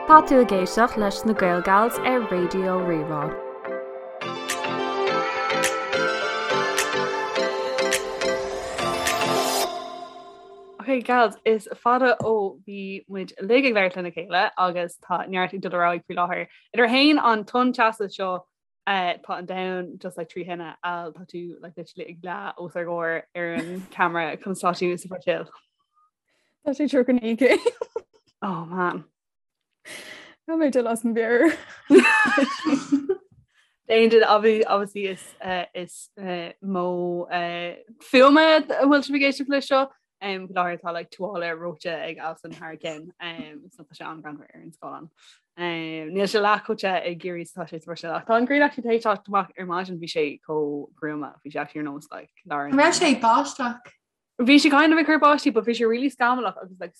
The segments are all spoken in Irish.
Tá tú ag éisteacht leis na Gael Gals ar Raidió Rí-Rá. Ok gals, is fada ó bhí muid uilig ag labhairt lena chéile agus tá neart ag dul ar aghaidh faoi láthair. Idir fhéin an tonn teasa seo tá an domhan just like trí thine Al tá tú like literally ag leá os ár gcomhair ar an camera conas tá tú sa Bhrasaíl. Tá sé 39 céim. Oh man. Tá mé dul as mo mheabhair. D'aon obviously is eh, is eh, modh eh, fuaime a bhfuil sibh ag éisteacht leis seo. Um, faoi láthair tá like tuáille reoite ag Alison thar a ceann um, so tá sé an-ghreannmhar ar an scáileán. Um, níl sé leath chomh te i gCiarraí is atá sé sa Bhruiséil ach tá an ghrian actually tar éis teacht amach ar maidin bhí sé chomh gruama bhí sé actually ar nós like lár An raibh sé ag báisteach? Bhí sé kind of ag cur báistí but bhí sé really scamallach agus like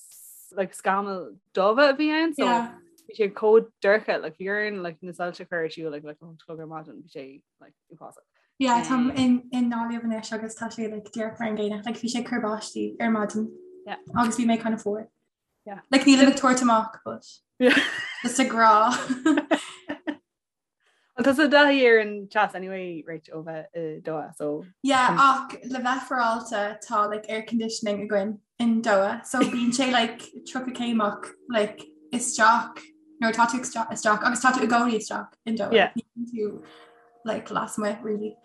like scamaill dubha a bhí ann so Yeah. bhí sé chomh dorcha like bhí orainn like na soilse a chur ar siúl like like a chlog ar maidin bhí sé like uafásach. Yeah, táim in i nGaillimh anois agus tá sé like díreach mar an gcéanna. Like bhí sé ag cur báistí ar maidin. Yeah. Agus bhí mé kind of fuar. Yeah. Like nílim ag tabhairt amach but Yeah. just ag rá. Well, tá tú i dtaithí ar an teas anyway Rach ó bheith i Doha so Yeah, ach le bheith féaráilte tá like air conditioning againn in Doha so bíonn sé like 30 céim ach like isteach nuair tá tú isteach agus tá tú i gcónaí isteach in Doha. Yeah. Ní bhíonn tú like lasmuigh really.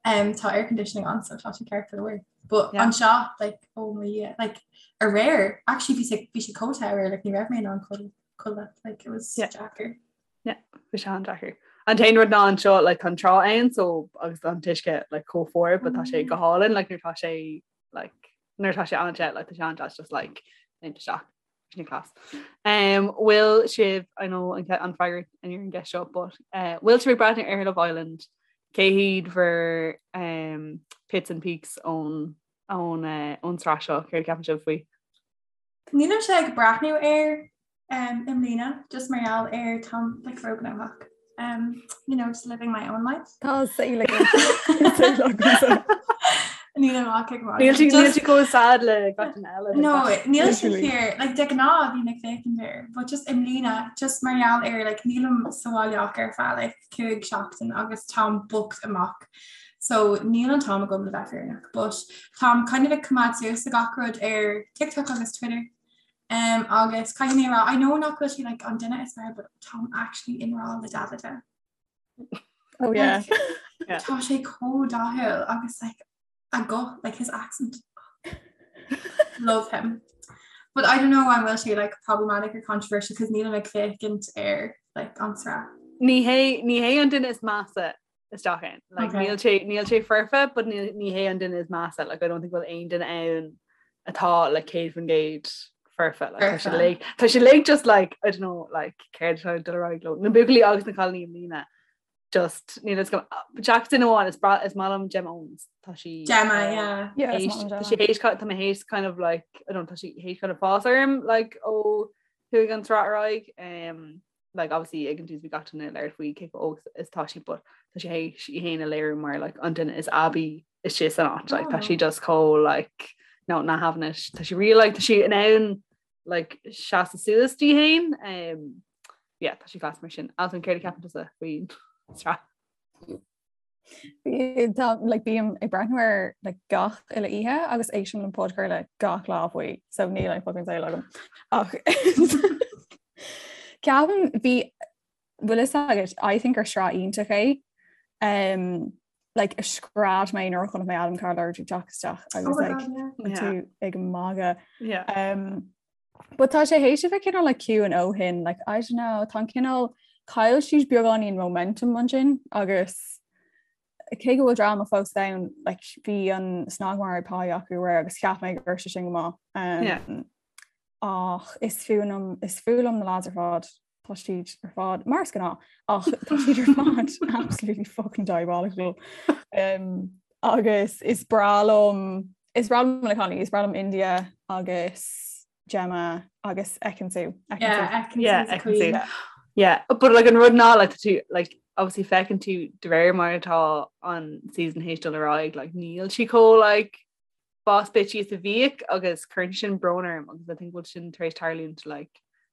Um, tá air conditioning ann so tá sé ceart go leor. But Yeah. anseo like oh my Dhia, like aréir actually bhí sé bhí sé chomh te aréir like ní raibh mé in ann codladh like it was Yeah. deacair. Bhí sé an-deacair. An t-aon rud ná anseo like tá an trá ann so agus an t-uisce like chomh fuar but tá sé go hálainn like nuair tá sé like nuair tá sé an-te like tá sé an-deas just like léimt isteach. Sin class. Um, bhfuil sibh I know an an freagra ar an gceist seo but uh, bhfuil sibh ag breathnú ar Love Island cé hiad bhur um, pits and peaks ón ón uh, ón tsraith seo céard a cheapann sibh faoi? Nílimse ag breathnú air um, i mbliana just mar gheall ar táim like róghnóthach. Um, you know, just living my own life. Tá saol agat. Nílim ach ag Níl sí níl sí chomh sad le gach duine eile. No, níl sé fíor, like de ghnáth bhínn ag féachaint air, but just i mbliana, just mar gheall ar like nílim sa bhaile ach ar feadh like 5 seachtain agus táim booked amach. So níl an t-am agam le bheith fírinneach, but táim kind of ag coimeád suas le gach rud ar TikTok agus Twitter. Um, agus caithfidh mé a rá, I know nach bhfuil sé like an duine is fearr, but táim actually i ngrá le Davide. Oh yeah. Yeah. Tá sé chomh dathúil agus like a guth, like his accent. Love him. But I don't know an bhfuil sé like problematic or controversial because nílim ag féachaint ar like an tsraith. Ní hé ní hé an duine is measa isteach ann. Like, Okay. níl sé níl sé foirfe, but níl ní hé an duine is measa. Like, I don't think bhfuil aon duine ann atá like 100% foirfe. Like, tá sé Foirfe. like tá sé like just like I don't know like céard atá ag dul ar aghaidh leo. Na buachaillí agus na cailíní i mbliana. Just níl a fhios agam. Seachas duine amháin is breá is maith liom Gemma Owens. Tá sí Gemma, yeah. Yeah, is théis- maith liom tá Gemma. sí théis tá mé théis kind of like I don't know, tá sí théis kind of fás orm like ó chuaigh an tsraith ar aghaidh. Um, like obviously ag an tús bhí gach duine ag labhairt faoi cé chomh óg is tá sí but tá sí théis í féin a léiriú mar like an duine is aibí istigh san áit like tá sí just chomh like no not having it tá sí really like tá sí in ann like seasamh suas di féin um yeah tá sí class mar sin Alison céard a cheapann tusa faoin tsraith? Tá like bím ag breathnú air like gach uile oíche agus éistim le podchraoladh gach lá faoi so níl aon fucking saol agam ach ceapaim bhí bhfuil fhios agat I think gur sraith iontach é um, like scread mé nuair a chonaic mé Adam Carter ag teacht isteach agus Oh my like God, yeah. Yeah. tú ag magadh Yeah. Um, But tá sé théis a bheith cineál like ciúin ó shin, like I don't know, tá an cineál chaill siad beagáinín momentum ansin agus cé go bhfuil dráma fós ann, like bhí an snagmhargadh pá acu aréir agus cheap mé go raibh sé sin go maith. Um, Yeah. Ach is fuath liom is fuath liom na lads ar fad, tá siad ar fad mar is gnáth ach tá siad ar fad absolutely fucking diabolical. Um, agus is breá liom is breá liom na cailíní, is breá liom India agus Gemma agus Ekin-Su. Yeah, Ekin-Su Yeah, is a Ekin-Su. queen. Yeah, but like an rud ná like tú like obviously feiceann tú de réir mar atá an season théis dul ar aghaidh like níl sí chomh like boss bitchy is a bhíodh agus cuireann sin brón orm agus I think bhfuil sin tar éis tarlúint like.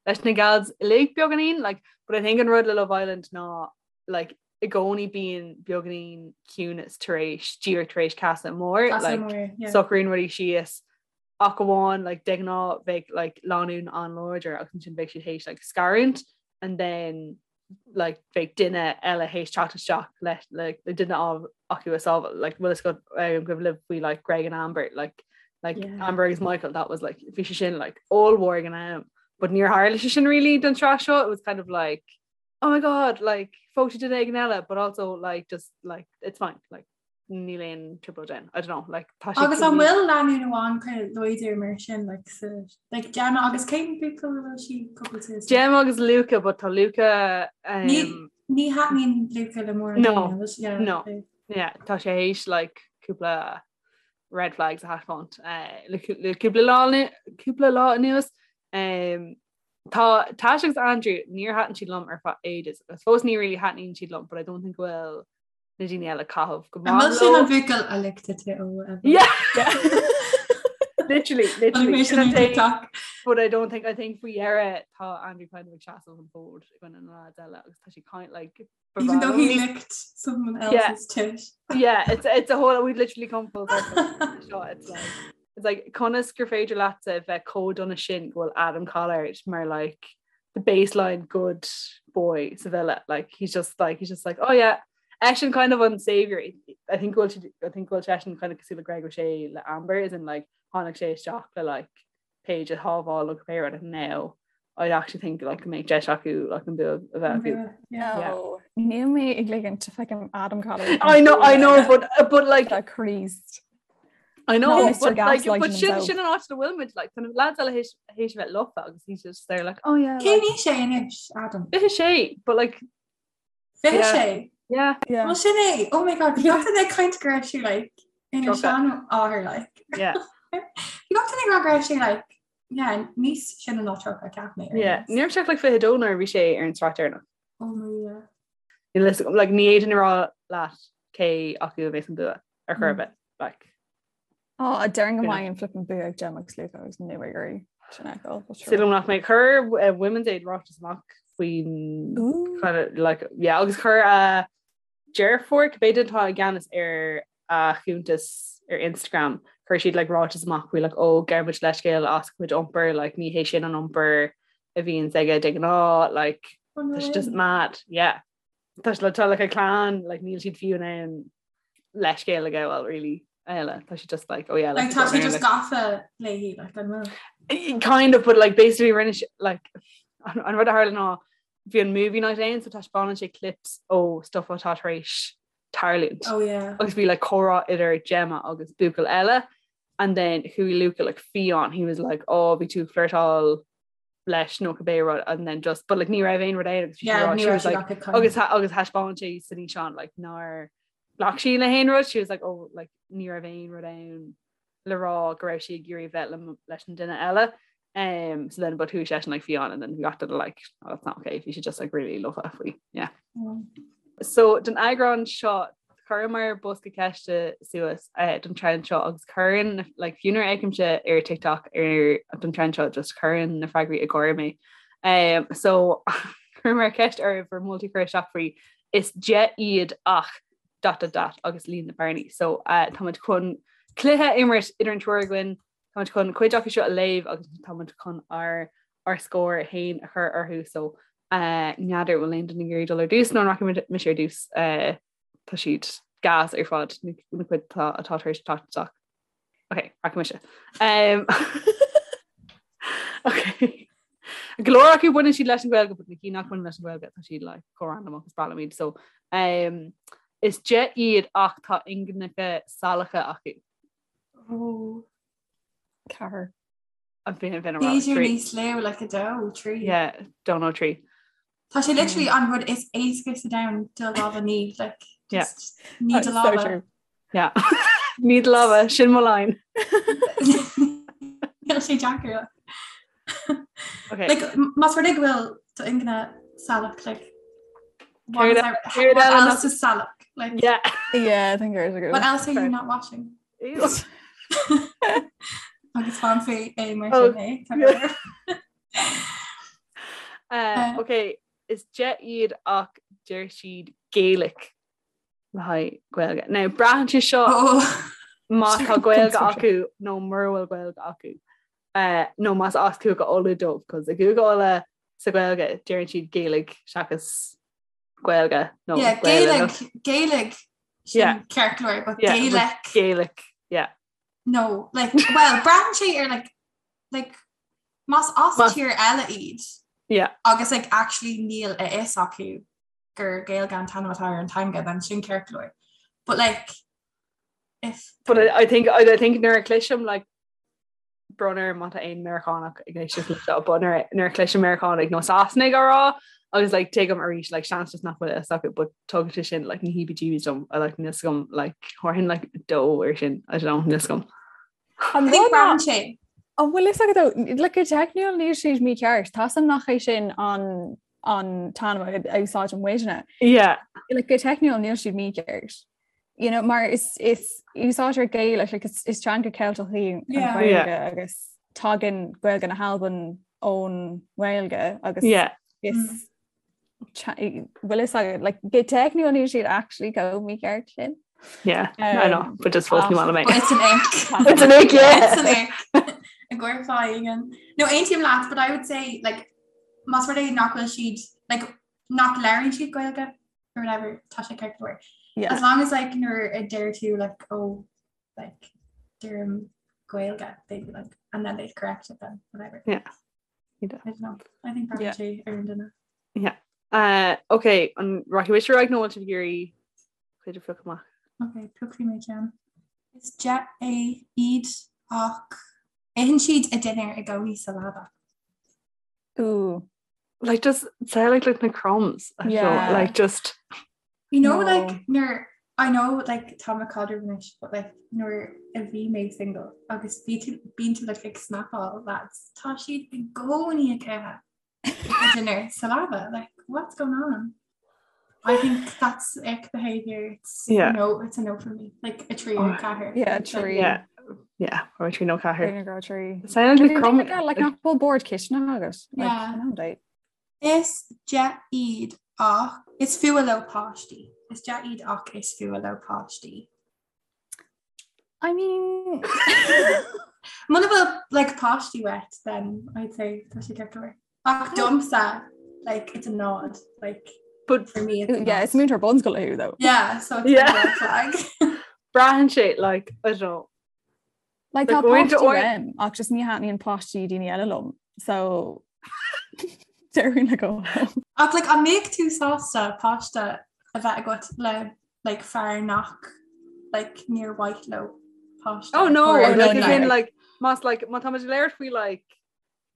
leis na gals uilig beagáinín like but I think an rud le Love Island ná like i gcónaí bíonn beagáinín ciúnas tar éis díreach tar éis casadh mór like socraíonn rudaí síos ach amháin like de ghnáth bheadh like lánúin an-láidir agus ansin bheadh siad théis like scarúint and then like bheadh duine eile théis teacht isteach le like le duine acu a sábháil like bhfuil a fhios agaibh libh faoi like Greg and Amber like like yeah. Amber agus Michael that was like bhí sé sin like ollmhór ag an am but níor tharla sé sin really don tsraith seo it was kind of like oh my god like phós sé duine éigin eile but also like just like it's fine like níl aon trioblóid ann I don't know like tá sé Agus an bhfuil lánúin amháin kind of láidir mar sin like sa like Gemma agus cén buachaill a bhfuil sí cúpla Gemma agus Luca but tá Luca um, ní ní thaitníonn Luca le mórán no yeah, no yeah tá sé théis like cúpla red flags a thaispeáint uh, le le cúpla lá cúpla lá anuas um, Tá Tash agus Andrew níor thaitin siad liom ar feadh ages agus fós ní really thaitníonn siad liom but I don't think go bhfuil na daoine eile ag caitheamh go maith leo. An bhfuil sin an buachaill a lick tit ó Yeah. Literally, literally. Sin an TikTok. But I don't think I think faoi dheireadh tá Andrew kind of ag seasamh an fód i gcoinne na lads eile agus tá sé kind like Even though he licked someone else's yeah. tit. Yeah, it's it's a whole we've literally come full circle. Seo, it's like it's like conas gur féidir leatsa bheith chomh dona sin go bhfuil Adam Collard mar like the baseline good boy sa villa like he's just like he's just like oh yeah eisean kind of an savior I think go bhfuil I think go bhfuil seisean kind of cosúil le Greg O'Shea le Amber is in like tháinig sé isteach le like Paige a shábháil nó cibé rud now I actually think like go mbeidh deis acu like an bua a bheith acu. Yeah. Níl mé ag ligint feicim Adam Collard. I know I know but but like Christ. I know but like but sin sin an áit a bhfuil muid like tá lads eile théis théis bheith lofa agus he's just there like oh yeah Cén aois é anois Adam? 26 but like 26 Yeah. Yeah. Well sin é oh my god bhí gach duine ag caint go raibh sé like ina seanathair like Yeah. Bhí gach duine ag rá go raibh sé like yeah níos sine ná 30 cheap mé. Yeah, ní raibh sé ach like 22 nuair a bhí sé ar an tsraith deireanach. Oh my yeah. Níl a fhios agam like ní fhéadfainn a rá leat cé acu a bheas an bua ar chor ar bith like. Á, déarfainn go mbeidh an flippin bua ag Gemma agus Luca agus níl mé ag iarraidh sin a fheiceáil, but sure. Súil agam nach mbeidh. Chuir eh, Women's Aid ráiteas amach faoin Ooh. kind of, like, yeah, agus chuir a deirfiúr, cibé duine atá i gceannas ar a chuntas ar Instagram, chuir siad like, ráiteas amach faoi like, ó gabhaimid leithscéal as a chuid iompair, like, ní hé sin an iompar a bhíonns aige de ghnáth, like, Oh, no tá sé just way. mad, yeah. Tá sé le tá like, a clann, like, níl siad fiú in ann leithscéal a ghabháil really eile tá sé just like oh yeah like tá sé just gafa léi like an bhfuil kind of but like basically rinne sé like an an rud a tharla ná bhí an movie night ann so taispeánann sé clips ó stuff atá tar éis tarlúint oh yeah agus bhí like comhrá idir Gemma agus buachaill eile and then chuaigh Luca like fiáin he was like oh bhí tú ag flirtáil leis nó cibé rud and then just but like ní raibh aon rud ann agus bhí sí Yeah, rá ní she raibh was sí like ach ag caint. agus tha- agus thaispeáin sé san fhíseán like nár ghlac sí le haon rud she was like oh like ní raibh aon rud ann le rá go raibh sí ag iarraidh bheith le leis an duine eile um so then but chuaigh seisean like fiáin and then we got to the like oh, that's not okay bhí sé just like really lofa faoi yeah Mm. So don eagrán seo chuireamar bosca ceiste suas eh, don trend seo agus cuireann like, fiú nuair a fheicimse ar TikTok ar don trend seo just cuireann na freagraí ag gáire mé. Um, so chuireamar ceist oraibh bhur moltaí a chur isteach faoi is de iad ach dot dot dot agus líon na bearnaí. So uh, táimid chun cluiche a imirt idir an triúr againn Táimid chun cuid acu seo a léamh agus táimid chun ár ár scór féin a chur orthu so n'fheadar bhfuil aon duine ag iarraidh dul ar dtús nó an rachaidh mise ar dtús tá siad gas ar fad na cuid atá atá tar éis teacht isteach. Ok, rachaidh mise. Um, ok. Go leor acu baineann siad leis an Ghaeilge, but na cinn nach mbaineann leis an Ghaeilge tá siad like chomh random agus is breá liom iad so um, is de iad ach tá ingineacha salacha acu. Oh. Ceathair. An bhí an bhí B'fhéidir níos lú like a dó, trí. Yeah, dó nó trí. Tá sé literally an rud is éasca sa domhan do lámha a ní, like, Yeah. just ní do So lámha. true. Yeah. Ní do lámha, sin mo line. Níl sé deacair. Okay. Like, m- más rud é go bhfuil do ingne salach, like, what Céard is e- our- céard what eile nach- else is salach? Like, Yeah. Yeah, I think there's a good. what else are you not washing? Agus fan fé é mar Oh, sin é. yeah. Uh, ok, is de iad ach deir siad Gaelic le haghaidh Gaeilge. Now braitheann sé seo oh. má tá Gaeilge acu nó mura bhfuil Gaeilge acu. Uh, nó más as Cúige Uladh dóibh, cos i gCúige Uladh sa Ghaeilge deireann siad Gaeilge seachas Gaeilge nó yeah, Gaeilge Gaeilge yeah. ceart go leor, but yeah, Gaelic Gaelic yeah. No, like, well, braitheann sé ar like, like, más as tír eile iad yeah. agus like, actually níl a fhios acu gur Gaeilge an t-ainm atá ar an teanga then sin ceart go leor. But like if But I, I think I, I think nuair a chloisim like brón orm má tá aon Meiriceánach ag éisteacht le seo, but nuair nuair a chloisim Meiriceánaigh nó Sasanaigh á rá agus like tuigim arís like seans just nach bhfuil a fhios acu but tugann sé sin like na heebie-jeebies dom I like níl a fhios agam like thabharfainn like dó ar sin I don't know níl a fhios agam. An I think braitheann sé. An bhfuil fhios agat like go teicniúil níl siad mícheart Tá san nach é sin an an t-ainm a úsáideann muidne. Yeah. Like go teicniúil níl siad mícheart. You know, mar is is úsáidtear Gaelic like, is, is teanga Ceilteach í an Yeah. Ghaeilge Yeah. agus tagann Gaeilge na hAlban ón nGaeilge agus Yeah. is bhfuil fhios agat like go teicniúil níl siad actually chomh mícheart sin. Yeah, I know, Um, but just fós ní maith liom é. But it's an ick. It's an ick, yeah. It's an ick. I gcuir fáigen. No, aontaím leat, but I would say like más rud é nach bhfuil siad like nach labhraíonn siad Gaeilge or whatever tá sé ceart go leor. Yeah. As long as like nuair a deir tú like oh like deirim Gaeilge they'd be like and then they'd correct it then whatever. Yeah. I don't know. I think Yeah. braitheann sé ar an duine. Uh, okay, an rachaidh mise ar aghaidh nó bhfuil sibh ag iarraidh cuid a phiocadh amach? Ok, piocfaidh mé ceann. Is de é iad ach itheann siad a dinnéar i gcónaí sa leaba. Ooh. Like just say like like na crumbs. I feel Yeah. like just You know No. like nuair I know like tá mé i gcaidreamh anois but like nuair a bhí mé single agus bhí tú bíonn tú like ag snapáil lads tá siad i gcónaí ag ithe a dinner sa leaba like what's going on? I think that's ick behavior. It's Yeah. no, it's a no for me. Like a trí Oh. or ceathair. Yeah, It's like- trí. yeah. Yeah, or trí nó ceathair. Trí nó trí. Sound like crumb like nach bhfuil bord cistine agat. Like, Yeah. an date. Is de iad ach is fuath leo páistí. Is de iad ach is fuath leo páistí. I mean Muna bhfuil like páistí uait then I'd say tá sé ceart go leor. Ach domsa like it's a nod like But for me it's a yeah, nod. is múinteoir bunscoile thú though. Yeah, so it's Yeah. a red flag. braitheann sé like I don't know. Like Like, tá going to páistí or- uaim ach just ní thaitníonn páistí daoine eile liom. So déarfainn le go. Ach like an mbeadh tú sásta páiste a bheith agat le like fear nach like níor mhaith leo páiste. Oh no, Or, like no, as no. in like más like má tá muid ag labhairt faoi like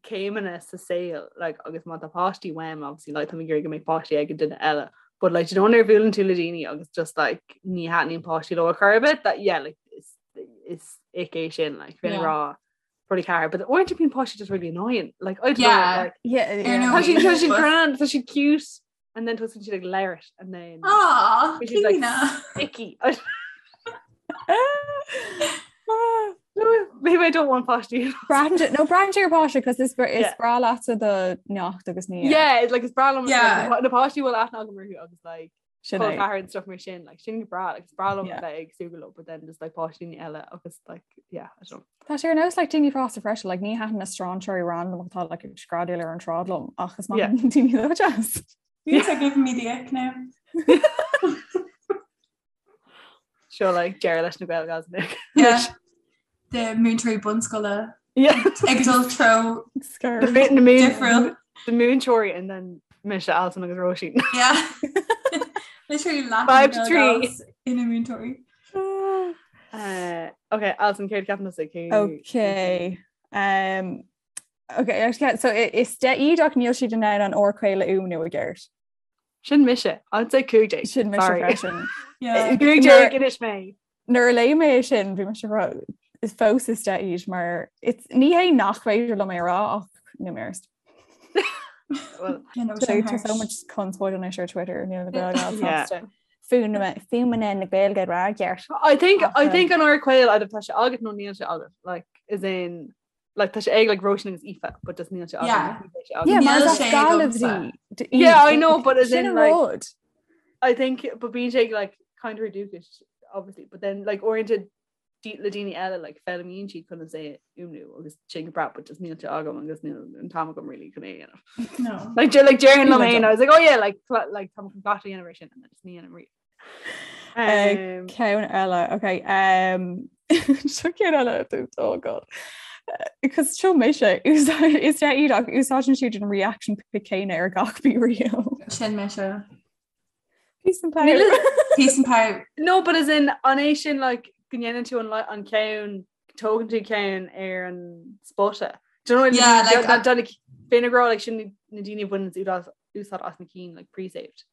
céimeanna sa saol like agus má tá páistí uaim obviously like tá mé ag iarraidh go mbeidh páistí ag an duine eile but like do you know nuair a bhuaileann tú le daoine agus just like ní thaitníonn páistí leo ar chor ar bith that yeah like is is ick é sin like bheinn ag Yeah. rá probably ceathair but uaireanta bíonn páistí just really annoying like I don't know Yeah. like Yeah, Ar yeah. ndóigh. tá siad tá siad But- grand tá siad cute and then tosaíonn siad ag labhairt and then Aw, Which is, like, Clíona. icky No, maybe I don't want páistí Braitheann sé- no braitheann sé ar páiste cos is is Yeah. breá leatsa do neacht agus ní Yeah, it's like is breá liom Yeah. like, na páistí bhfuil aithne agam orthu agus like sin col é. ceathar and stuff mar sin like sin go breá like is breá liom Yeah. bheith ag súgradh leo but then just like páistí eile agus like yeah I don't know. Tá sé ar nós like daoine fásta freisin like ní thaitníonn na strainséirí random atá like ag screadaíl ar an tsráid liom ach is maith Yeah. liom daoine dó jazz. You are giving me the ick now. Seo like deireadh leis na Gael Gals Yeah. The múinteoirí bunscoile Yeah. ag dul treo Scare. The mi- the moon difriúil. the múinteoirí and then mise Alison agus Róisín. Yeah. Literally laughing 5 to 3. ina múinteoirí. Uh, okay, Alison céard a cheapann tusa cé Okay. Um, okay, actually, so i- is de iad ach níl siad in ann an R caol a fhuaimniú i gceart. Sin mise I'd say 15. Sin mise Sorry. freisin. Yeah. 15 anois mé. Nuair a léigh mé é sin bhí mise ag rá, is fós is de iad mar it's ní hé nach féidir liom é a rá ach níl mé ar. Well, You know, So sin tá so harsh. much conspóid anois ar Twitter níl na Gaeilge á Yeah. sásta. Fuaimeanna na Gaeilge a rá i gceart. I think I Ach, think an R caol either tá sé agat nó níl sé agat like is in Like tá sé ag like Róisín agus Aoife, but just níl sé agam. Yeah. Níl sé agam. Yeah, mar Níl is sé as Gaillimh agamsa. di. Yeah, I know, but as Sin in, an like- rud. I think but bíonn sé like kind of dúchais obviously, but then like oriented le daoine eile like foghlaimíonn siad conas é a fhuaimniú agus sin go breá but just níl sé agam agus níl an t-am agam really chun é a dhéanamh. No. Like like déarfainn liom Níl féin, I was like oh yeah like like tá chun cleachtadh a dhéanamh ar sin and then just ní dhéanaim riamh. Um, Ceann eile, okay. Um, seo ceann eile oh god. Because seo mise is de iad ach úsáideann siad an reaction pic céanna ar gach BeReal. Sin mise. Peace and power. Peace and power. No, but as in an é sin like go ndéanann tú an an ceann tógann tú ceann ar an spota. Do you know what I mean? Yeah, like, Done b'in ag rá like sin na daoine a bhaineann úsáid úsáid as na cinn like pre-saved.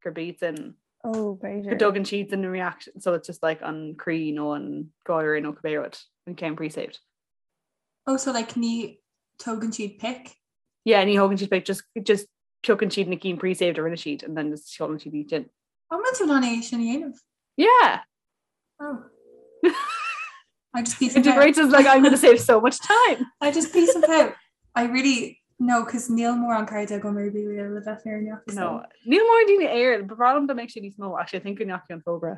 Gurb iad sin Oh, go b'fhéidir. dtugann siad an reaction so it's just like an croí nó an gáire nó cibé rud an ceann pre-saved. Oh, so like ní tógann siad pic? Yeah, ní thógann siad pic just just piocann siad na cinn pre-saved a rinne siad and then just seolann siad iad sin. An bhfuil tú in ann é sin a dhéanamh? Yeah. Oh. I just peace and pout. Integrates is like I'm going to save so much time. I just peace and pout. I really no, cos níl mórán cairde agam ar BeReal le bheith fírinneach. so. No, níl mórán daoine air, ba bhreá liom dá mbeadh sé níos mó actually I think go ndeachaigh an fógra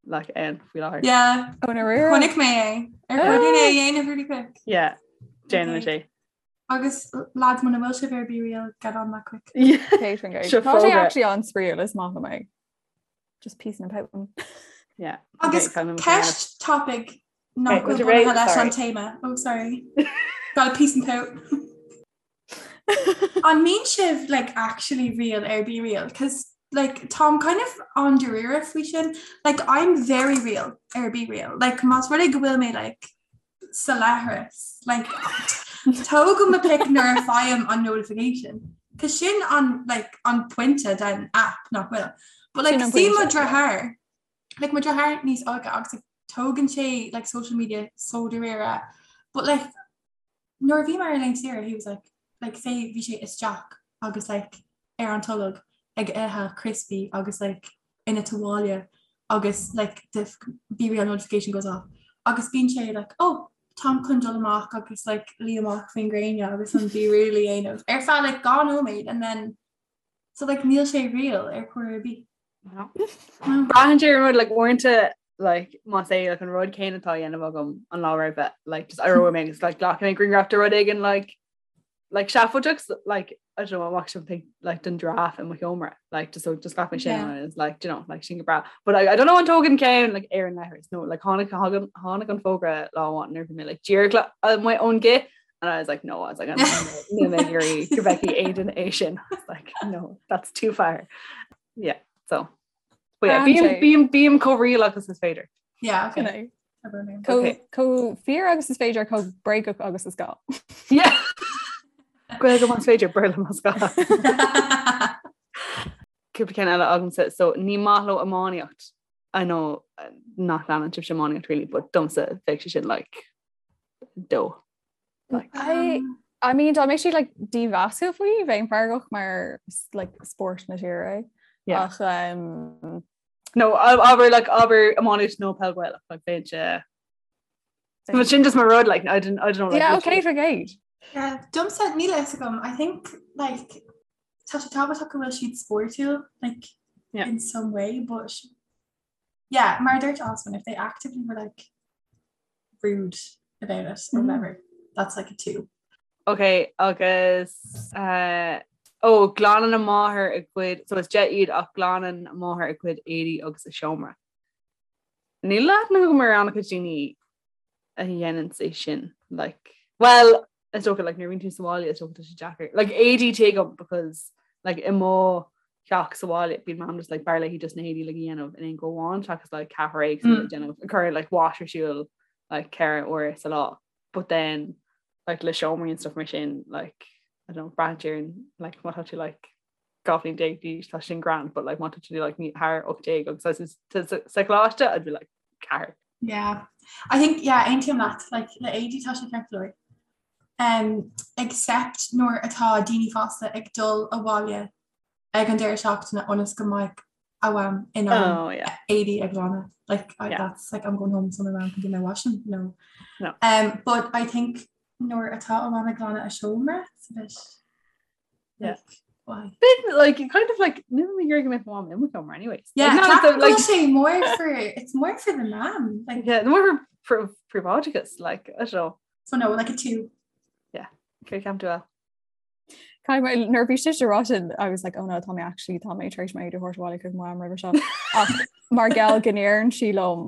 like ann faoi láthair. Yeah, Oh, na rira. chonaic mé é. Ar chóir dúinn é a dhéanamh really quick. Yeah, déanann Okay. sé. Agus lads muna bhfuil sibh ar BeReal, get on that quick. Yeah. Catering guy. Seo Tá sé fógra. actually an-spraíúil is maith liom é. Just peace and pout. Yeah. Agus Okay, kind of ceist topic nach Okay, bhfuil would you bunaithe rate- leis an sorry. téama. Oh, sorry. Got a peace and pout. An mbíonn sibh like actually real ar BeReal? Cos like táim kind of an-dáiríre faoi sin. Like I'm very real ar BeReal. Like más rud é go bhfuil mé like sa leithreas. Like tógaim mo pic nuair a fhaighim an notification. Cos sin an like an pointe den app nach bhfuil. But like Sin an see mo pointe, yeah. deartháir like mo deartháir níos óige agus like, tógann sé like social media so dáiríre. But like nuair a bhí mé ar laethanta saoire he was like like say bhí sé isteach agus like ar an tolg ag ithe crispy agus like ina tuáille agus like the BeReal notification goes off agus bíonn sé like oh táim chun dul amach agus like luí amach faoin gréine agus an BeReal a dhéanamh ar feadh like 2 nóiméad and then so like níl sé real ar chor ar bith. No. Braitheann sé ar an rud like uaireanta like más é like an rud céanna atá á dhéanamh agam an lá roimhe like just éireoidh mé agus like glacfaidh mé grianghraf de rud éigin like like seafóideach like I don't know amach something like den giraffe i mo sheomra like just so just ghlac mé sin Yeah. and it's like do you know like sin go breá but I, I don't know an dtógann ceann like ar an leithreas no like tháinig tháinig tháinig an fógra lá amháin nuair a bhí mé like díreach le uh, my own gith and I was like no I was like I'm níl mé ag iarraidh go bhfeicfidh Aidan é sin I was like no that's too far yeah so but yeah Brand bím é. bím bím chomh real agus is féidir Yeah, okay. Sin é. Okay. Chomh fíor agus is féidir chomh bréagach agus is gá. Yeah. Gaeilge más féidir Béarla más gá. Cúpla ceann eile agamsa, so ní maith leo iománaíocht. I know uh, nach leanann sibhse iománaíocht really, but domsa bheadh sé sin like dó. Like, I Um, I mean dá mbeadh siad like dímheasúil faoi bheinn feargach mar is, like spórt na tíre é. Yeah. Ach um, No, abair like abair iománaíocht nó peil Ghaelach, like bheinn sé But sin just my rud like I didn't I don't know like, yeah, literally- okay for gate. Yeah, domsa níl a fhios agam. I think like tá sé tábhachtach go bhfuil siad spórtúil like Yeah. in some way, but yeah, mar a dúirt Osman, if they actively were like rude about it or Mm. whatever, that's like a 2. Ok, agus uh, ó glanann a máthair a gcuid so is 10 iad ach glanann a máthair a gcuid éadaí agus a seomra. Níl aithne agam ar an-chuid daoine a dhéanann é sin like well is dócha like nuair a bhíonn tú sa bhaile is dócha tá sé deacair. Like éadaí tuigim because like i mo theach sa bhaile bíonn mam just like b'fhearr léi just na héadaí like a dhéanamh in aon go amháin seachas like ceathrar éagsúil mm. déanamh cur like wash ar siúl like 4 uair sa lá. But then like le seomraí and stuff mar sin like I don't know braitheann sé ar an like má tá tú like 12 bhliain d'aois tá sin grand but like má tá tú like ní thar 18 agus sa choláiste I'd be like ceathair. Yeah. I think yeah aontaím leat like le éadaí tá sé ceart go leor. Um, except nuair atá daoine fásta ag dul abhaile ag an deireadh seachtaine ionas go mbeidh a mham in ann Oh yeah. éadaí a ghlanadh. Like I, Yeah. that's like I'm going home so my mom can do my washing. No. No. Um, but I think nuair atá a mam ag glanadh a seomra it's a bit Yeah. like, why? Bit like kind of like níl mé ag iarraidh go mbeadh mo mham i mo sheomra anyways. Yeah, Like, not ceapaim like go bhfuil sé more for it's more for the mam like yeah, more for for príobháideachas like I don't know. so no like a 2. Yeah, cé ceapann tú El? Caithfidh mé nuair a bhí sise ag rá sin I was like oh no tá mé actually tá mé tar éis m'éadaí a thabhairt abhaile chuig mo mham roimhe seo. Ach mar gheall go ndeireann sí liom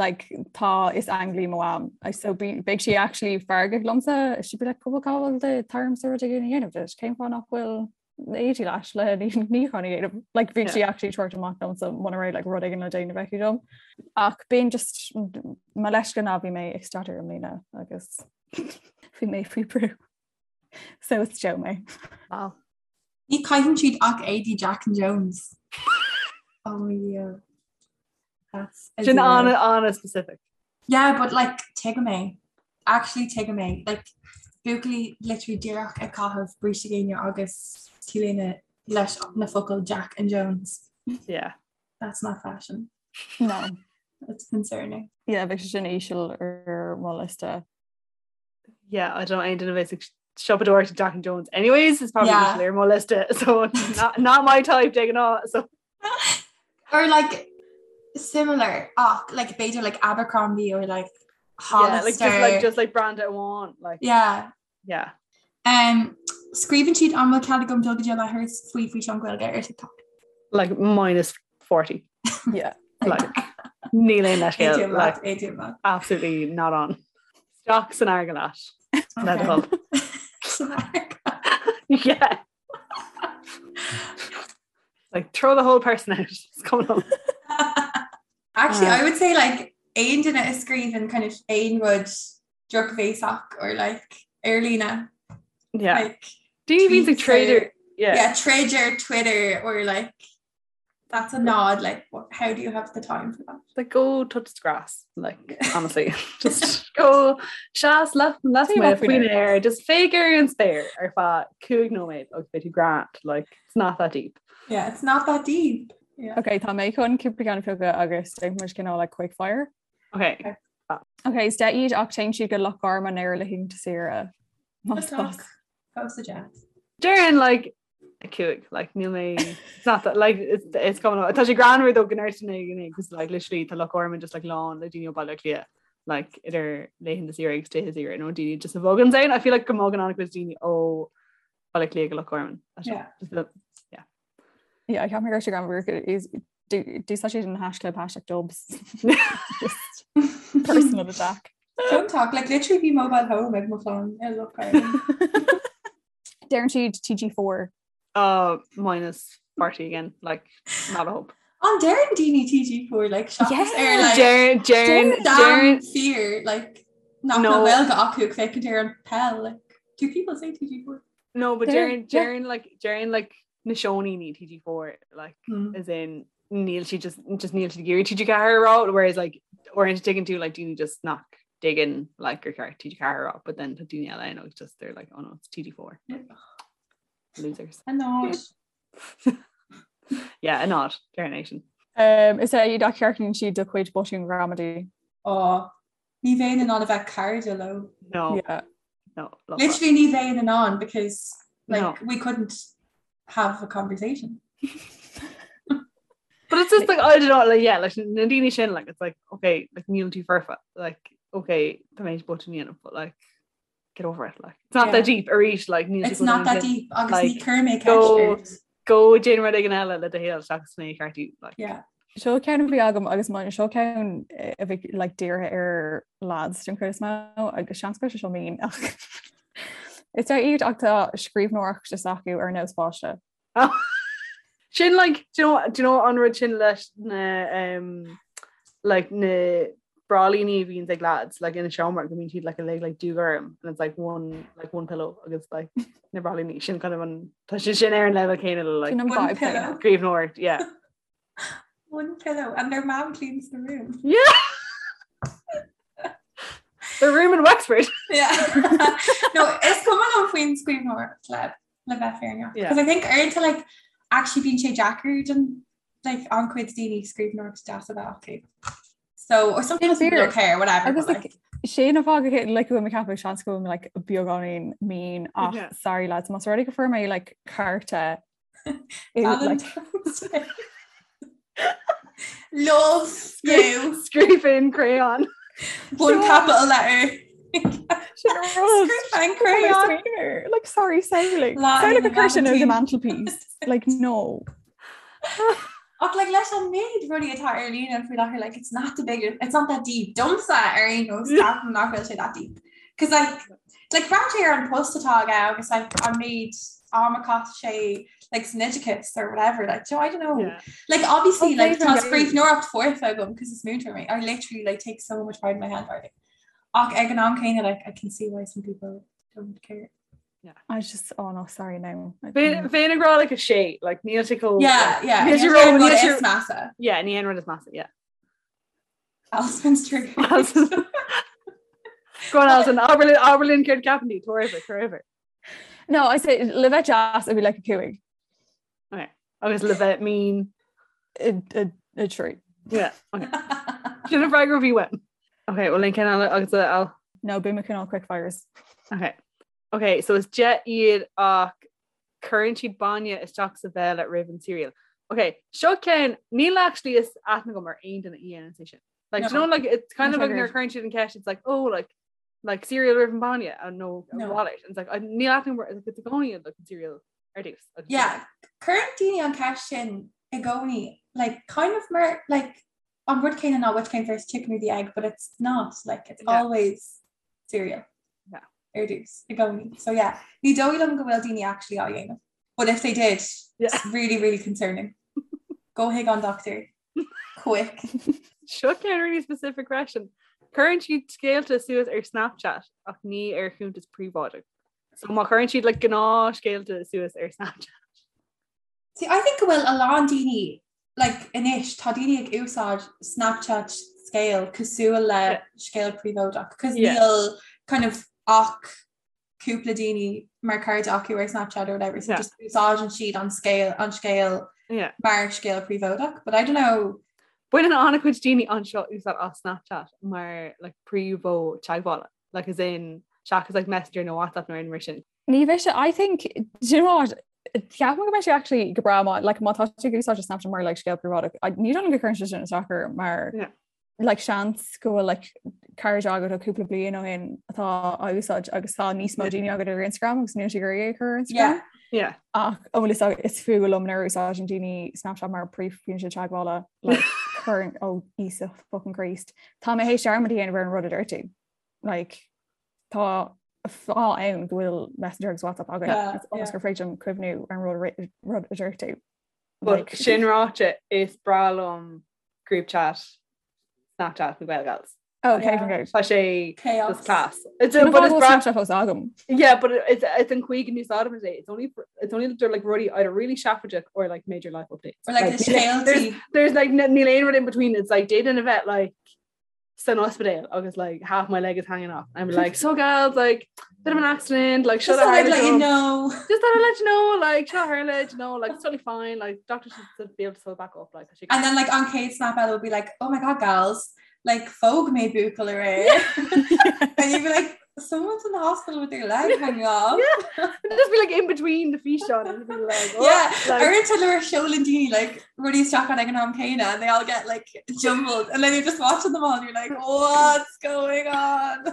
like tá is ainglí mo mham I so be beidh sí actually feargach liomsa she'd be like cúpla cá bhfuil do táimse rud éigin a dhéanamh duit cén fáth nach bhfuil na éadaí leat le níochán a dhéanamh like bhí sí actually ag tabhairt amach liomsa muna raibh like rud éigin le déanamh aici dom ach bíonn just mo leithscéal ná bhí mé ag staidéar i mbliana agus bhí mé faoi brú so is Joe mé. Wow. Ní chaitheann siad ach éadaí Jack and Jones. Oh yeah. That's a Sin zero. an an-specific. Yeah, but like tuigim é. Actually tuigim é. Like buachaillí literally díreach ag caitheamh bríste géine agus t-léine leis na focail Jack and Jones. Yeah. That's not fashion. No. That's concerning. Yeah, bheadh sé sin íseal ar mo liosta. Yeah, I don't aon duine a bheas ag siopadóireacht Jack and Jones. Anyways, it's probably Yeah. yeah. ar mo liosta, so not, not my type de ghnáth. So Or like similar ach like b'fhéidir like Abercrombie or like yeah, like Hollister. just like just like brand amháin, like yeah. yeah. Um, scríobhann siad an bhfuil cead agam dul go dtí an leithreas faoi físeán Gaeilge ar TikTok. Like minus 40. Yeah. Like níl aon leithscéal, Aontaím like leat, aontaím leat. absolutely not on. Isteach san fharraige leat. Le do thoil. San fharraige. Yeah. Like throw the whole person out. It's coming on. Actually, Uh. I would say like aon duine a scríobhann kind of aon rud drochbhéasach or like ar líne. Yeah. Like Daoine a bhíonn ag tweets trader. or- Yeah. yeah, troid ar Twitter or like that's a nod like what, how do you have the time for that? Like go touch the grass. Like honestly, just go seas left left Faoi faoin faoin aer, just féach ar an spéir ar feadh 5 nóiméad agus beidh tú grand. Like it's not that deep. Yeah, it's not that deep. Yeah. Ok, tá mé chun cúpla ceann a phiocadh agus déanfaidh muid cineál like quick fire. Okay. Okay. Ok, is deich iad ach téann siad go Loch Garman ar laethanta saoire. Más Talk. bas. Post a jet. Déarfainn like a cúig like níl mé it's not that like it's, it's coming up. Tá sé greannmhar though go ndeireann duine because like literally tá Loch Garman just like lán le daoine ó Baile Átha Cliath like idir laethanta saoire agus tithe saoire nó daoine just a bhogann ann. I feel like go mbogann an-chuid daoine ó Baile Átha Cliath go Loch Garman. Yeah. Just the, yeah. Yeah, ceapaim go raibh sé greannmhar is d'úsáid siad an hashtag hashtag dubs. Just personal attack. Don't talk like literally bhí mobile home ag mo chlann i Loch Garman. Deireann siad TG4. Uh, minus 40 again, like not a hope. An deireann daoine TG4 like seachas Yeah. ar like Deireann deireann damn deireann fear like nach No. bhfuil Gaeilge acu ag féachaint ar an peil like do people say TG4? No, but Deireann- deireann deireann like deireann like na seoiníní TG4 like Hmm. as in níl sí just just níl siad ag iarraidh TG4 a rá whereas like uaireanta tuigeann tú like daoine just nach dtuigeann like gur ceart TG4 a rá but then tá daoine eile ann just they're like oh no it's TG4 losers A nod. yeah a nod deireann é sin Um, is é iad ach ceartaíonn siad do chuid botún gramadaí. Oh, ní bheinn in ann a bheith cairde leo. no Yeah. no love that. Literally ní bheinn in ann because like No. we couldn't have a conversation. But it's just like I don't know like yeah like na daoine sin like it's like okay like níl tú foirfe like okay tá mé botún a dhéanamh but like get over it like it's not Yeah. that deep arís like níl It's not that deep agus Like, ní chuir mé go- ceist ort. go déan rud éigin eile le do shaol seachas mé a cheartú like Yeah. Seo ceann a bhí agam agus mar seo ceann eh, a bhí like dírithe ar lads den chuid is mó agus seans go bhfuil sé seo mín ach Is é iad ach tá scríbhneoireacht is acu ar nós páiste. Sin like do you know, do you know an rud sin leis na um, like na bráillíní a bhíonn ag lads like ina seomra go mbíonn siad like uilig like dúghorm and it's like one like one pillow agus like na bráillíní sin kind of an tá sin sin ar an level céanna le like Sin an One vibe pillow. céanna. scríbhneoireacht yeah One pillow and their mom cleans the room. yeah the room in Wexford Yeah. no, is cuma liom faoin scríbhneoireacht le le bheith fírinneach. Yeah. Because I think uaireanta like actually bíonn sé deacair don like an-chuid daoine scríbhneoireacht deas a bheith acu. So or sometimes people fíor. don't care whatever. Agus but, like, like, Sin an fáth go like go bhfuil mé ag ceapadh seans go bhfuil mé like beagáinín mean ach yeah. sorry lads más rud é go fuair mé like cárta like, Love you Scríofa in crayon. One capital letter. Scríofa in crayon. Like sorry samhlaigh Samhlaigh ag cur sin ar the mantelpiece. Like no. Ach like leis an méid rudaí atá ar líne faoi láthair like it's not the big it's not that deep. Domsa ar aon nós ceapaim nach bhfuil sé that deep. Cos like like breathnaigh ar an post atá aige agus like an méid am a chaith sé like san oideachas or whatever like so I don't know. Yeah. Like obviously okay, like tá scríbhneoireacht foirfe agam cos is múinteoir mé. I literally like take so much pride in my handwriting. Ach ag an am céanna like I can see why some people don't care. Yeah. I was just oh no sorry no. Bheinn ag rá like a sé like níl sé chomh Yeah, yeah. Níl sé ró níl sé measa. Yeah, ní an rud is measa, yeah. Alston's trigger. Go on Alison, abair linn abair linn céard ceapann tú, tabhair uimhir, tabhair uimhir. No, I say le bheith deas it'd be like a cúig. Okay. Agus le bheith mean. A, a, a trí. Yeah, okay. Sin an freagra a bhí uaim. Okay, well linn ceann eile agus a Al. No, beidh mé cineál quick fires. Okay. Okay, so is 10 iad ach cuireann siad bainne isteach sa bhéal roimh an cereal. Okay, seo ceann níl actually is aithne agam ar aon duine a dhéanann sé sin. Like, no. you know, like it's kind of like nuair a cuireann siad an ceist, it's like, oh, like like cereal roimh an bainne and no, no. wallet. And it's like níl aithne agam like, it's i gcónaí like an cereal ar dtús. Yeah, cuireann daoine an ceist sin i gcónaí, like kind of mar like an rud céanna ná which came first chicken or the egg, but it's not like it's yeah. always cereal. Yeah. Ar dtús i gcónaí. So yeah, ní dóigh liom go bhfuil daoine actually á dhéanamh. But if they did, yeah. it's really, really concerning. Go chuig an doctor. Quick. Seo ceann really specific question. Cuireann siad scéalta suas ar Snapchat ach ní ar chuntas príobháideach. So má chuireann siad like gnáthscéalta suas ar Snapchat. See, I think go bhfuil a lán daoine like, anois tá daoine ag úsáid Snapchat scéal cosúil le yeah. scéal príobháideach, cos yeah. níl kind of ach cúpla daoine mar cairde acu ar Snapchat or whatever, so yeah. just úsáideann siad an scéal an scéal yeah. mar scéal príobháideach, but I don't know. Baineann an-chuid daoine anseo úsáid as Snapchat mar like, príomh-mhodh teagmhála, like, as in seachas like, Messenger nó WhatsApp nó aon mar sin. Ní bheidh sé I think do you know what ceapaim go mbeidh sé actually go breá má like má tá tú ag úsáid Snapchat mar like scéal príobháideach ní dóigh liom go gcuireann sé sin isteach air mar Yeah. like seans go bhfuil like cairde agat ó cúpla bliain ó shin atá á úsáid agus tá níos mó daoine agat ar Instagram agus níl siad ag iarraidh é a chur ar Instagram. Yeah. Yeah. Ach an bhfuil fhios agat is fuath liom nuair a úsáideann daoine Snapchat mar príomhfhoinse teagmhála like cuireann ó Íosa fucking Christ. Tá mé théis dearmad a dhéanamh ar an rud a dúirt tú. Like tá fáth ann go bhfuil Messenger agus WhatsApp againn Yeah, ionas yeah. gur féidir liom cuimhniú ar an rud a ri- rud a dúirt tú. But Like- sin ráite is breá liom group chat Snapchat na Gael Gals. Oh, okay, Yeah. yeah. Tá sé Chaos. just class. It's Sin a, but it's bhfuil breá Snapchat fós agam. Yeah, but it's it's an chaoi go n-úsáidim é. It's only for, it's only they're like rudaí either really seafóideach or like major life updates. Or like the there's, scéaltaí. there's like níl aon rud in between. It's like d'fhéadfainn a bheith like san ospidéal agus like half my leg is hanging off. I'm like so gals like bit of an accident like Just should thought I I'd let you know. Just thought I'd let you know like seo tharla you know like it's totally fine like doctor should be able to sew it back up like she And then like on chéad snap eile will be like, oh my god gals, like phóg mé buachaill aréir. And you'd be like, someone's in the hospital with their leg hanging off. Yeah. It'd just be like in between the físeán and be like oh, Yeah, like, Uaireanta nuair a sheolann daoine like rudaí isteach ag an am céanna and they all get like jumbled and then you're just watching them all and you're like what's going on?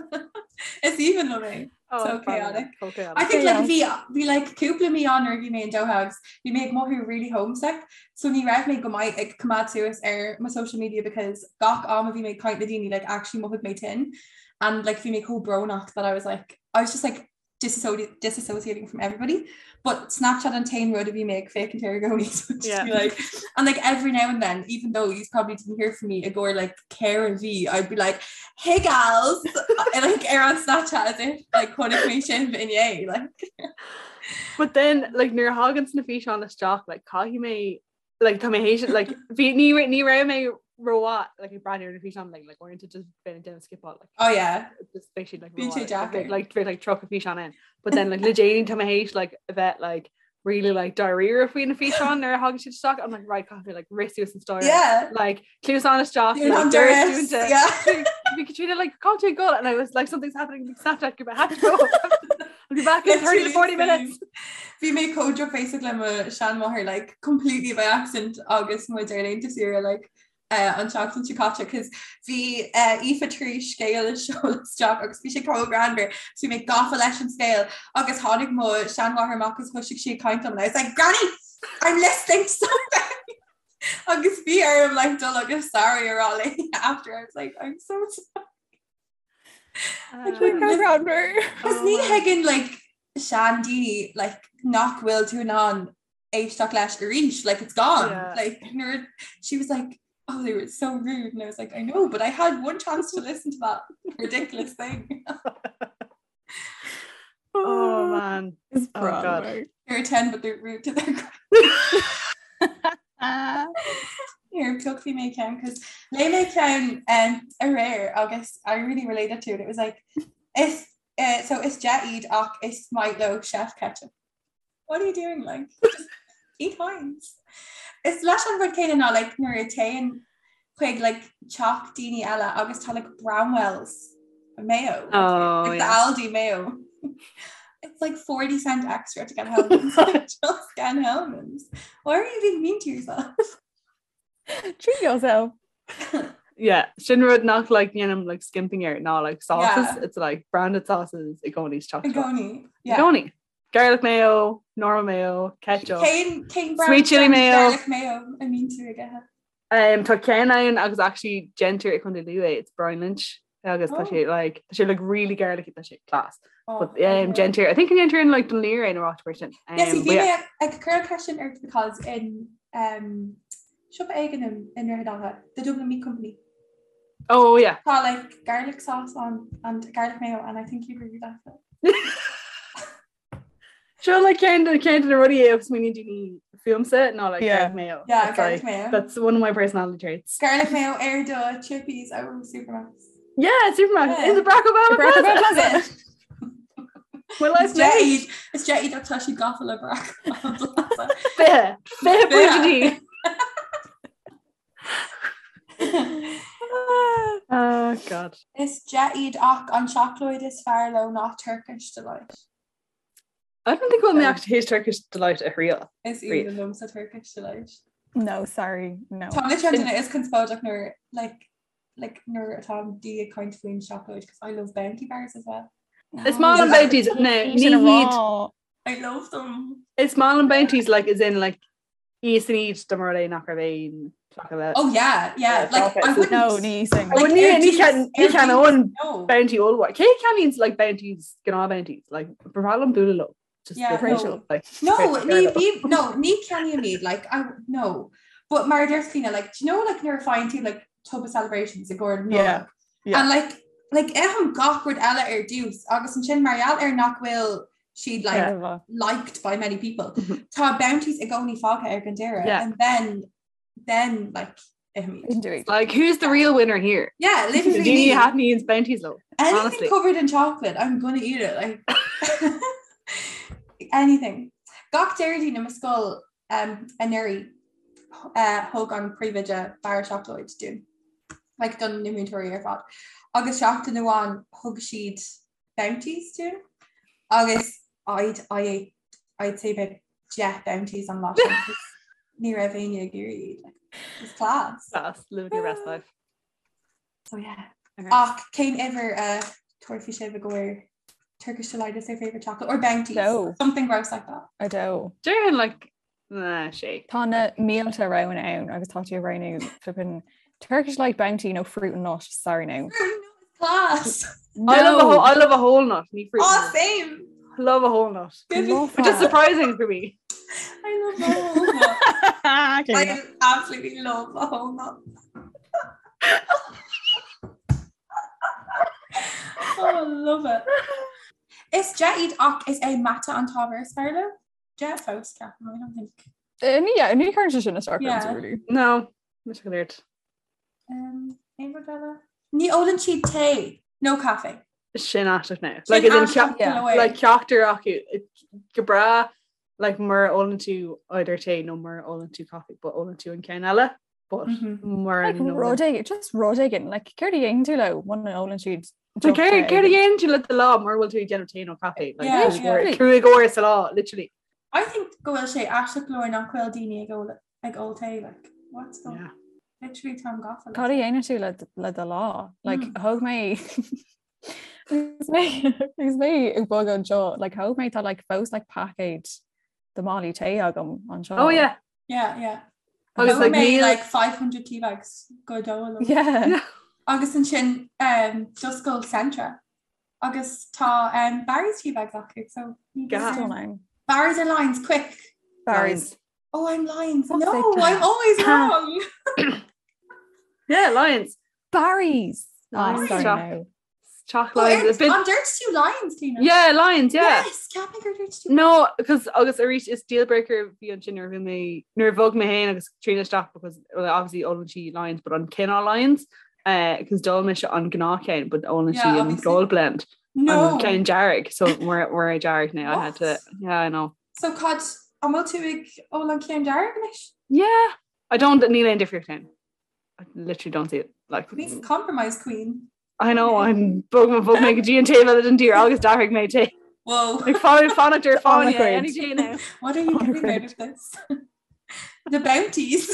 Is aoibhinn liom é. oh, so chaotic. So chaotic. I think like Chaos. bhí bhí like cúpla mí ann nuair a bhí mé in Doha agus bhí mé ag mothú really homesick so ní raibh mé go maith ag coimeád suas ar mo social media because gach am a bhí mé ag caint le daoine like actually mhothaigh mé tinn and like bhí mé chomh brónach that I was like I was just like disassociating from everybody but Snapchat an t-aon rud a bhí mé ag féachaint air i gcónaí so just Yeah. be like and like every now and then even though you probably didn't hear from me i gcomhair like ceithre mhí I'd be like hey gals and like ar an Snapchat as if like chonaic mé sibh inné like But then like nuair a thagann na físeáin isteach like caithfidh mé like tá mé théis like bhí ní ní raibh mé rómhaith like ag breathnú ar na físeáin like like uaireanta just bheinn ag déanamh skippáil like oh yeah just beidh siad like Bíonn sé rómhaith, like, deacair. like bheadh like 30 físeán in but then like le déanaí tá mé théis like a bheith like really like dáiríre faoi na físeáin nuair a thagann siad isteach I'm like right caithfidh mé like rith suas an staighre Yeah. like cluasáin isteach Dún like, an doras doras, dúnta. yeah. Bhí Katrina like cá bhfuil tú ag dul and I was like something's happening big Snapchat I have to go I'll be back in 30 to 40 minutes Bhí mé chomh drochbhéasach le mo seanmháthair like completely by accident agus muid ar laethanta saoire like uh, an tseachtain seo caite cos bhí uh, Aoife tar éis scéal a sheoladh isteach agus bhí sé chomh greannmhar so bhí mé gafa leis an scéal agus tháinig mo seanmháthair amach agus thosaigh sí ag caint liom and I was like Granny I'm listening to something agus bhí orm like dul agus sorry a rá léi after I was like I'm so sorry Cos ní thuigeann like seandaoine like nach bhfuil tú in ann éisteacht leis arís like it's gone Yeah. like nuair she was like oh they were so rude and I was like I know but I had one chance to listen to that ridiculous thing Oh man Is Oh, God. they're 10 but they're rude to their Here piocfaidh mé ceann cos léigh mé ceann um, aréir agus I really related to it. It was like is uh, so is deich iad ach is maith leo chef ketchup. What are you doing like? Just eat Heinz. Is leis an rud céanna ná like nuair a téann chuig like teach daoine eile agus tá like Bramwell's mayo. Oh, like the yeah. Aldi mayo. It's like 40 cent extra to get Hellmann's. Just get Hellmann's. Why are you being mean to yourself? Treat yourself. Yeah, sin rud nach like ndéanaim like skimping air ná like sauces Yeah. it's like branded sauces i gcónaí is I gcónaí. Yeah. I gcónaí. Garlic mayo, normal mayo, ketchup. Cén cén brand Sweet chili brand mayo. Garlic mayo a mbíonn tú ag ithe. Um, tá ceann ann agus actually déantar i Contae Lú é, it's Brian Lynch agus tá Oh. sé like tá sé like really garlicky tá sé class. Oh, But um, déantar I think déantar in like Dún Laoghaire nó áit mar sin. Um, Yes, but bhí yeah. mé ag cur question ort because in um, siopa éigin in in Droichead Átha, the Dublin Meat Company. Oh yeah. Tá like garlic sauce on and garlic mayo and I think you'd really like it. Seo like ceann de ceann de na rudaí a smaoiníonn daoine fúmsa ná like Yeah. garlic mayo. Yeah, It's, garlic like, mayo. That's one of my personality traits. Garlic mayo ar do chippies out of Supermac's. Yeah, Supermac Yeah. in the Barack Obama Barack Plaza. Obama Plaza. My life's Is deich made. iad is deich iad ach tá siad gafa le Barack Obama Plaza. Fiche. Fiche pointí. Oh God. Is deich iad ach an seacláid is fearr leo ná Turkish Delight. I don't think we'll mé actually his Turkish delight a thriail. Is Riamh. aoibhinn liomsa Turkish Delight. No, sorry, no. Tá mise an duine is conspóideach nuair like like nuair atá daoine ag caint faoin seacláid because I love bounty bars as well. Is maith liom bounties no ní Sin a hiad rá. I love them. Is maith liom bounties like is in like íosfainn iad dá mba rud é nach raibh aon chocolate. Oh yeah, yeah. Yeah, Like I chocolate. wouldn't. No, ní sin. I wouldn't ar ní dtús- can ní ar can dtús, own No. bounty ollmhór. Cé ceannaíonn like bounties gnáth bounties like ba bhreá liom bualadh leo. Just Yeah, the- no. like No, Right, ní fair bí no, ní ceannaím iad like I no. But mar a deir Clíona, like do you know like nuair a faigheann tú like tub of celebrations i gcomhair Yeah, Nollag? yeah. And like like ithim gach rud eile ar dtús agus ansin mar gheall ar nach bhfuil siad like Yeah. liked by many people. Mhm. Tá bounties i gcónaí fágtha ar an deireadh Yeah. and then then like ithim iad. Indeed. Like who's the real winner here? Yeah, literally Daoine me. a thaitníonn bounties leo. Anything honestly. covered in chocolate, I'm gonna eat it. Like anything. Gach Déardaoin i mo scoil um, anuraidh uh, thug an príomhoide barra seacláid dúinn. Like don na múinteoirí ar fad. Agus seachtain amháin thug siad bounties dúinn. Agus I'd, I ate, I'd say about 10 bounties an lá sin, 'cause ní raibh éinne ag iarraidh iad. Like, it was class. Class, living your best life. So yeah. Okay. Ach cén uimhir a thabharfaidh sibh i gcomhair Turkish Delight is their favourite chocolate or Bounties. No. Something gross like that. I do. Déarfainn like nah, sé. Tá na mílte roghanna ann agus tá tú ag roghnú flippin' Turkish Delight Bounty nó fruit and nut, sorry now. Fruit and nut is class. I love a whole, I love a whole nut. Ní fruit. Oh, and nut. same. Love a whole nut. Give me- Love Which is that. surprising for me. I love a whole nut. Okay. I absolutely love a whole nut. oh, I love it. Is deich iad ach is é mata an t-ábhar is fearr leo? Deich fós ceapaim, I don't think. Eh, ní yeah, ní chuireann sé sin isteach Yeah. ormsa, really. No, mise go léir. Um, aon rud eile? Ní ólann siad tae, no caife. Sin aisteach now. Sin Like as in aisteach yeah. go leor. like ceachtar acu go breá. Like mura ólann tú either tae nó mura ólann tú coffee, but ólann tú an ceann eile, but mura Like rud éigin, just rud éigin, like céard a dhéanann tú leo muna ólann siad So deoch céard tae céard a éigin? dhéanann tú le do lá mura bhfuil tú ag déanamh tae nó caife? Like, Yeah, cúig yeah. uair- cúig uair sa lá, literally. I think go bhfuil sé aisteach go leor nach bhfuil daoine ag ól ag ól tae like what's the Yeah. literally táim gafa le Cad a tae. dhéanann tú le le do lá? Like Mm. thóg mé Agus mé agus mé ag bogadh anseo, like thóg mé tá like fós like paicéad de málaí tae agam anseo. Oh yeah. Yeah, yeah. Agus Thóg like mé níl like 500 tea bags go dóigh liom. Yeah. Yeah. Agus ansin um, d'oscail Centra agus tá um, Barry's tea bags acu so ní Gas. Still nine. Barry's or Lyons quick. Barry's. Oh, I'm Lyons. Fuck's No, sake. I'm always wrong. Yeah, Lyons. Barry's. Oh, Lyons. sorry, Choc- no. Chalk Oh, Lyons. ar- A bit An dúirt tú Lyons, Tina? Yeah, Lyons, yeah. Yes, ceapaim gur dúirt tú. No, because agus arís is deal breaker bhí ansin nuair a bhí mé nuair a bhog mé féin agus Tríona isteach because well, obviously ólann sí Lyons but an cineál Lyons because d'ól mise an gnáthcheann but ólann Yeah, sí an obviously. gold blend No. an ceann dearg so we're we're dearg now I had to What? yeah I know So cad an bhfuil tú ag ól an ceann dearg anois? yeah I don't níl aon difríocht ann I literally don't see it like Níos compromise queen. I know I'm bog bhog mé go dtí an taobh eile den tír agus d'athraigh mé tae Whoa. like fan fanacht ar On fáinne the grid. any day now What are you On the getting out grid. of this? The bounties.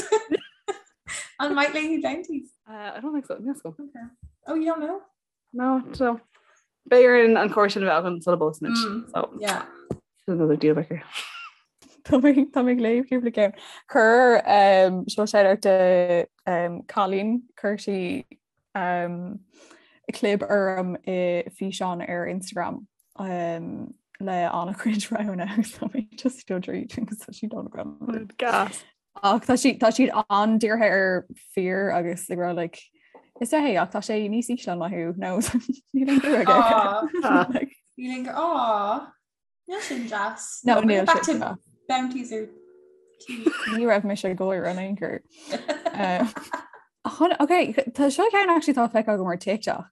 On White Lady bounties. uh, I don't think so yes go Okay. Oh, you don't know? No, so B'fhéidir an cóir sin a bheith an sula bpósann Mm. so Yeah. another deal breaker. Tá mé tá mé ag léamh cúpla ceann. Chuir um, seo shout do um, Colleen chuir sí um, clib orm i físeán ar Instagram um, le an-chuid roghanna agus tá mé just dul tríd agus tá siad an Gas. Ach tá siad tá siad an-dírithe ar fir agus ag rá like is é ach tá sé níos ísle ná thú nó níl aon bua aige. Aw. Ah. Like, Níl aon Aw. Níl sin deas. No, bring níl it back sin to deas. bounties or tea. Ní raibh mise ag gáire in aon chor. Um, Chun- Ok, tá seo ceann actually tá feicthe agam ar TikTok.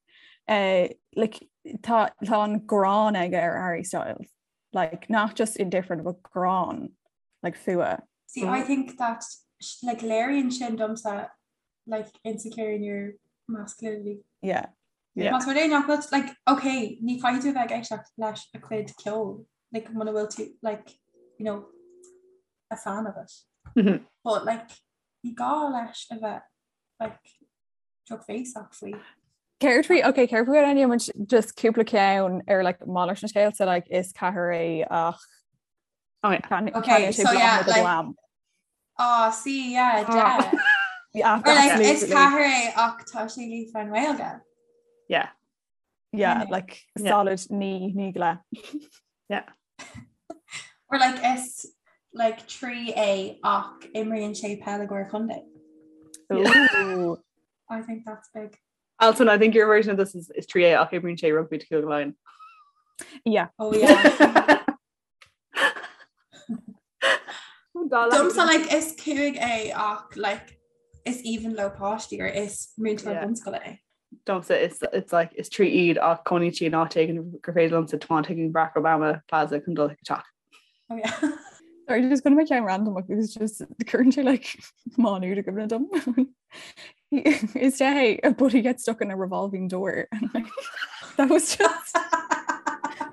Uh, like, tá tá an gráin aige ar Harry Styles. Like, not just indifferent, but gráin, like fuath. See, I think that sh- like léiríonn sin domsa like insecure in your masculinity. Yeah. Yeah. Más rud é nach bhfuil like okay, ní chaithfidh tú a bheith ag éisteacht leis a chuid ceoil, like muna bhfuil tú like you know a fan of it. Mhm. But like ní gá leis a bheith like drochbhéasach faoi. Céard faoi ok céard faoi an muid just cúpla ceann ar like malairt an scéil so like is ceathair é ach Oh, yeah. Can, Okay, can sé so yeah, like, like- glam. Oh, see, yeah, Ah. yeah. Yeah, Or like is absolutely. ceathair é ach tá sé líofa i nGaeilge. Yeah. Yeah, Yeah. like Yeah. solid ní ní le. Or like is like 3 é ach imríonn sé peil i gcomhair contae. Ooh. I think that's big. Alton, I think your version of this is, is 3A ach imríonn sé rugby to Cúige Laighean. Yeah. Oh yeah. Domsa like is cúig é ach like is aoibhinn leo páistí or is múinteoir Yeah. bunscoile é. Domsa it's it's like is 3 iad ach cónaíonn sí in áit éigin gur féidir liomsa tiomáint chuig Barack Obama Plaza chun dul chuig a teach. Oh yeah. Sorry, just gonna make ceann random because just currently like Manu to give dum. Is day but he gets stuck in a revolving door and like that was just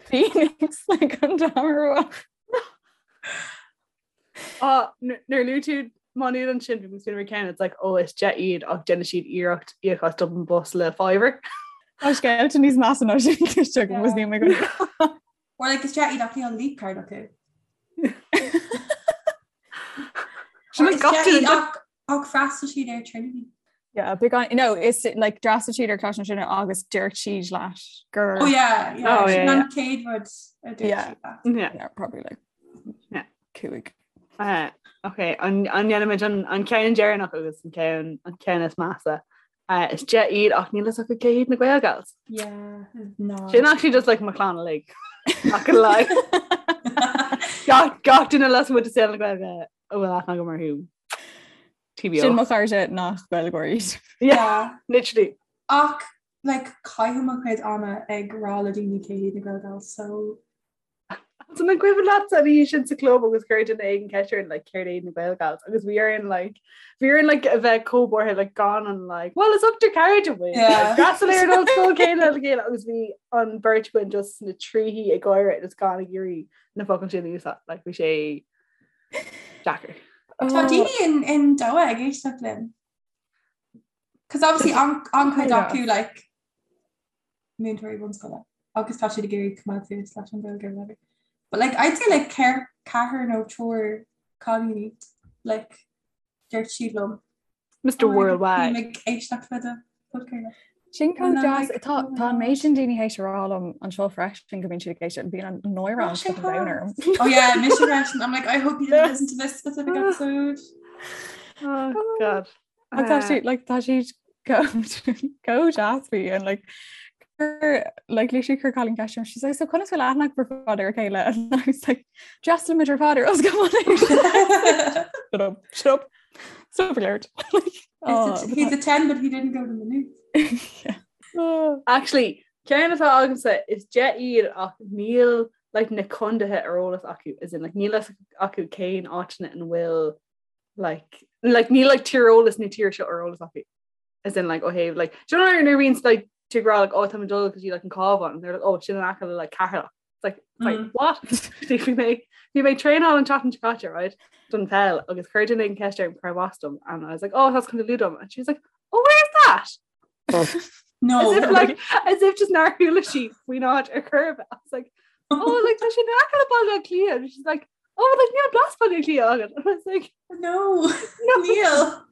Phoenix like on Damara. Ah, nuair a luaigh tú Má Nuad ansin bhí mé ceann it's like oh is 10 iad ach déanann siad iarracht íoc as Dublin Bus le fiver. Tá scéalta níos measa ná sin just was ní mé go Or like is deich iad ach níl leap card acu. Sin Or like is gach deich duine iad ach ach d'fhreastail siad ar Trinity. Yeah, big on no, it's like d'fhreastail siad ar Coláiste na Tríonóide agus dúirt siad leat gur Oh yeah, yeah. Oh, yeah, Sin an chéad rud a dúirt Yeah. siad leat. Yeah. yeah, probably like Yeah. cúig. Uh, okay, an an ndéanaimid an an ceann deireanach agus an ceann an ceann is measa. Uh, is 10 iad ach níl a fhios acu cé hiad na Gael Gals. Yeah, no. Sin actually just like mo chlann uilig. Not gonna lie. Gach gach duine lasmuigh de saol na Gaeilge a bhfuil aithne agam orthu. TBO. Sin mo chairde nach Gaeilgeoirí iad. Yeah, Yeah. literally. Ach like caithim mo chuid ama ag rá le daoine cé hiad na Gael Gals, so So an cuimhin leat an oíche sin sa club agus chuir duine éigin ceist orainn like céard é na Gael Gals agus bhí orainn like bhí orainn like a bheith chomh buartha like gan an like well is ochtar cairde muid D'fhreastail ar an ollscoil céanna le chéile agus bhí an beirt againn just sna tríthí ag gáire agus gan ag iarraidh na focail sin a úsáid like bhí sé deacair. Tá daoine in in Doha ag éisteacht linn. Cos obviously an an-chuid acu like múinteoirí bunscoile agus tá siad ag iarraidh coimeád suas leis an Ghaeilge or whatever. But like I'd say like ceir ceathrar nó triúr cailíní like dúirt siad liom. Mr. Worldwide. Bím ag éisteacht le do podchraoladh. Sin chomh And I'm deas like, tá oh my tá an God. méid sin daoine théis a rá liom anseo freisin go mbíonn siad ag éisteacht bíonn an náire Oh, an sé fucking domhan orm. Oh yeah, mise freisin. I'm like I hope you didn't listen to this specific episode. Oh God. Ach tá siad like tá siad chomh deas faoi and like chuir like literally chuir cailín ceist orm she's like so conas bhfuil aithne agaibh ar fad ar a chéile and I was like d'fhreastail muid ar fad ar ollscoil Shut up shut up stop alert like oh, He's a 10 but he didn't go to Maynooth. yeah. Oh. Actually, ceann atá agamsa is 10 iad ach níl like na contaetha ar eolas acu as in like níl fhios acu cén áiteanna an bhfuil like like níl like tíreolas na tíre seo ar eolas acu as in like ó thaobh like do you know nuair a bhíonn like tú ag rá like oh tá mé ag dul go dtí like an Cabhán and they're like oh sin in aice le like Ceatharlach it's like it's like mm. what bhí mé bhí mé traenáil an tseachtain seo caite right don pheil agus chuir duine éigin ceist orm cárb as dom and I was like oh that's Contae Lú dom and she was like oh where's that No. As if like as if just nár chuala sí faoin áit ar chor ar bith. I was like oh like tá sé in aice le Baile Átha Cliath and she's like oh like níl blas Baile Átha Cliath agat and I was like No. No. Níl.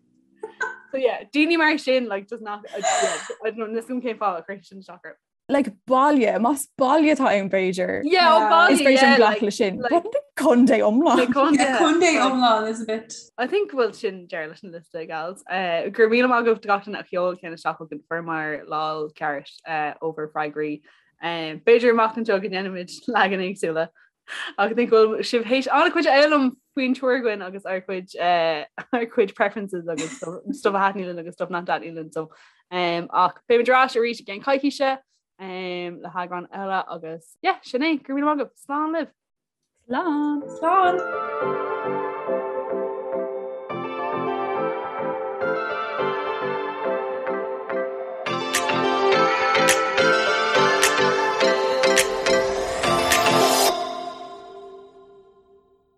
So yeah, daoine mar sin like just not I, yeah, I don't know níl a fhios agam cén fáth a chuir sin isteach orm. Like baile, más baile atá ann b'fhéidir. Yeah, ó Yeah. baile, Is féidir yeah, glacadh like, le sin. like- But contae iomlán. like contae, Yeah, contae like- iomlán is a bit. I think bhfuil sin deireadh leis an liosta gals. Uh, go raibh míle maith agaibh do gach duine a sheol ceann isteach chugainn fuaireamar lán ceart uh, ó bhur bhfreagraí. Um, B'fhéidir amach anseo go ndéanfaimid leagan éagsúla. Ach I think bhfuil sibh théis an-chuid a fhoghlaim faoin triúr againn agus ár gcuid uh, ár gcuid preferences agus stuff stuff a thaitníonn linn agus stuff nach dtaitníonn linn. So, um, ach beimid ar ais arís i gceann coicíse um, le heagrán eile agus yeah, sin é, go raibh míle maith agaibh. Slán libh! Slán. Slán.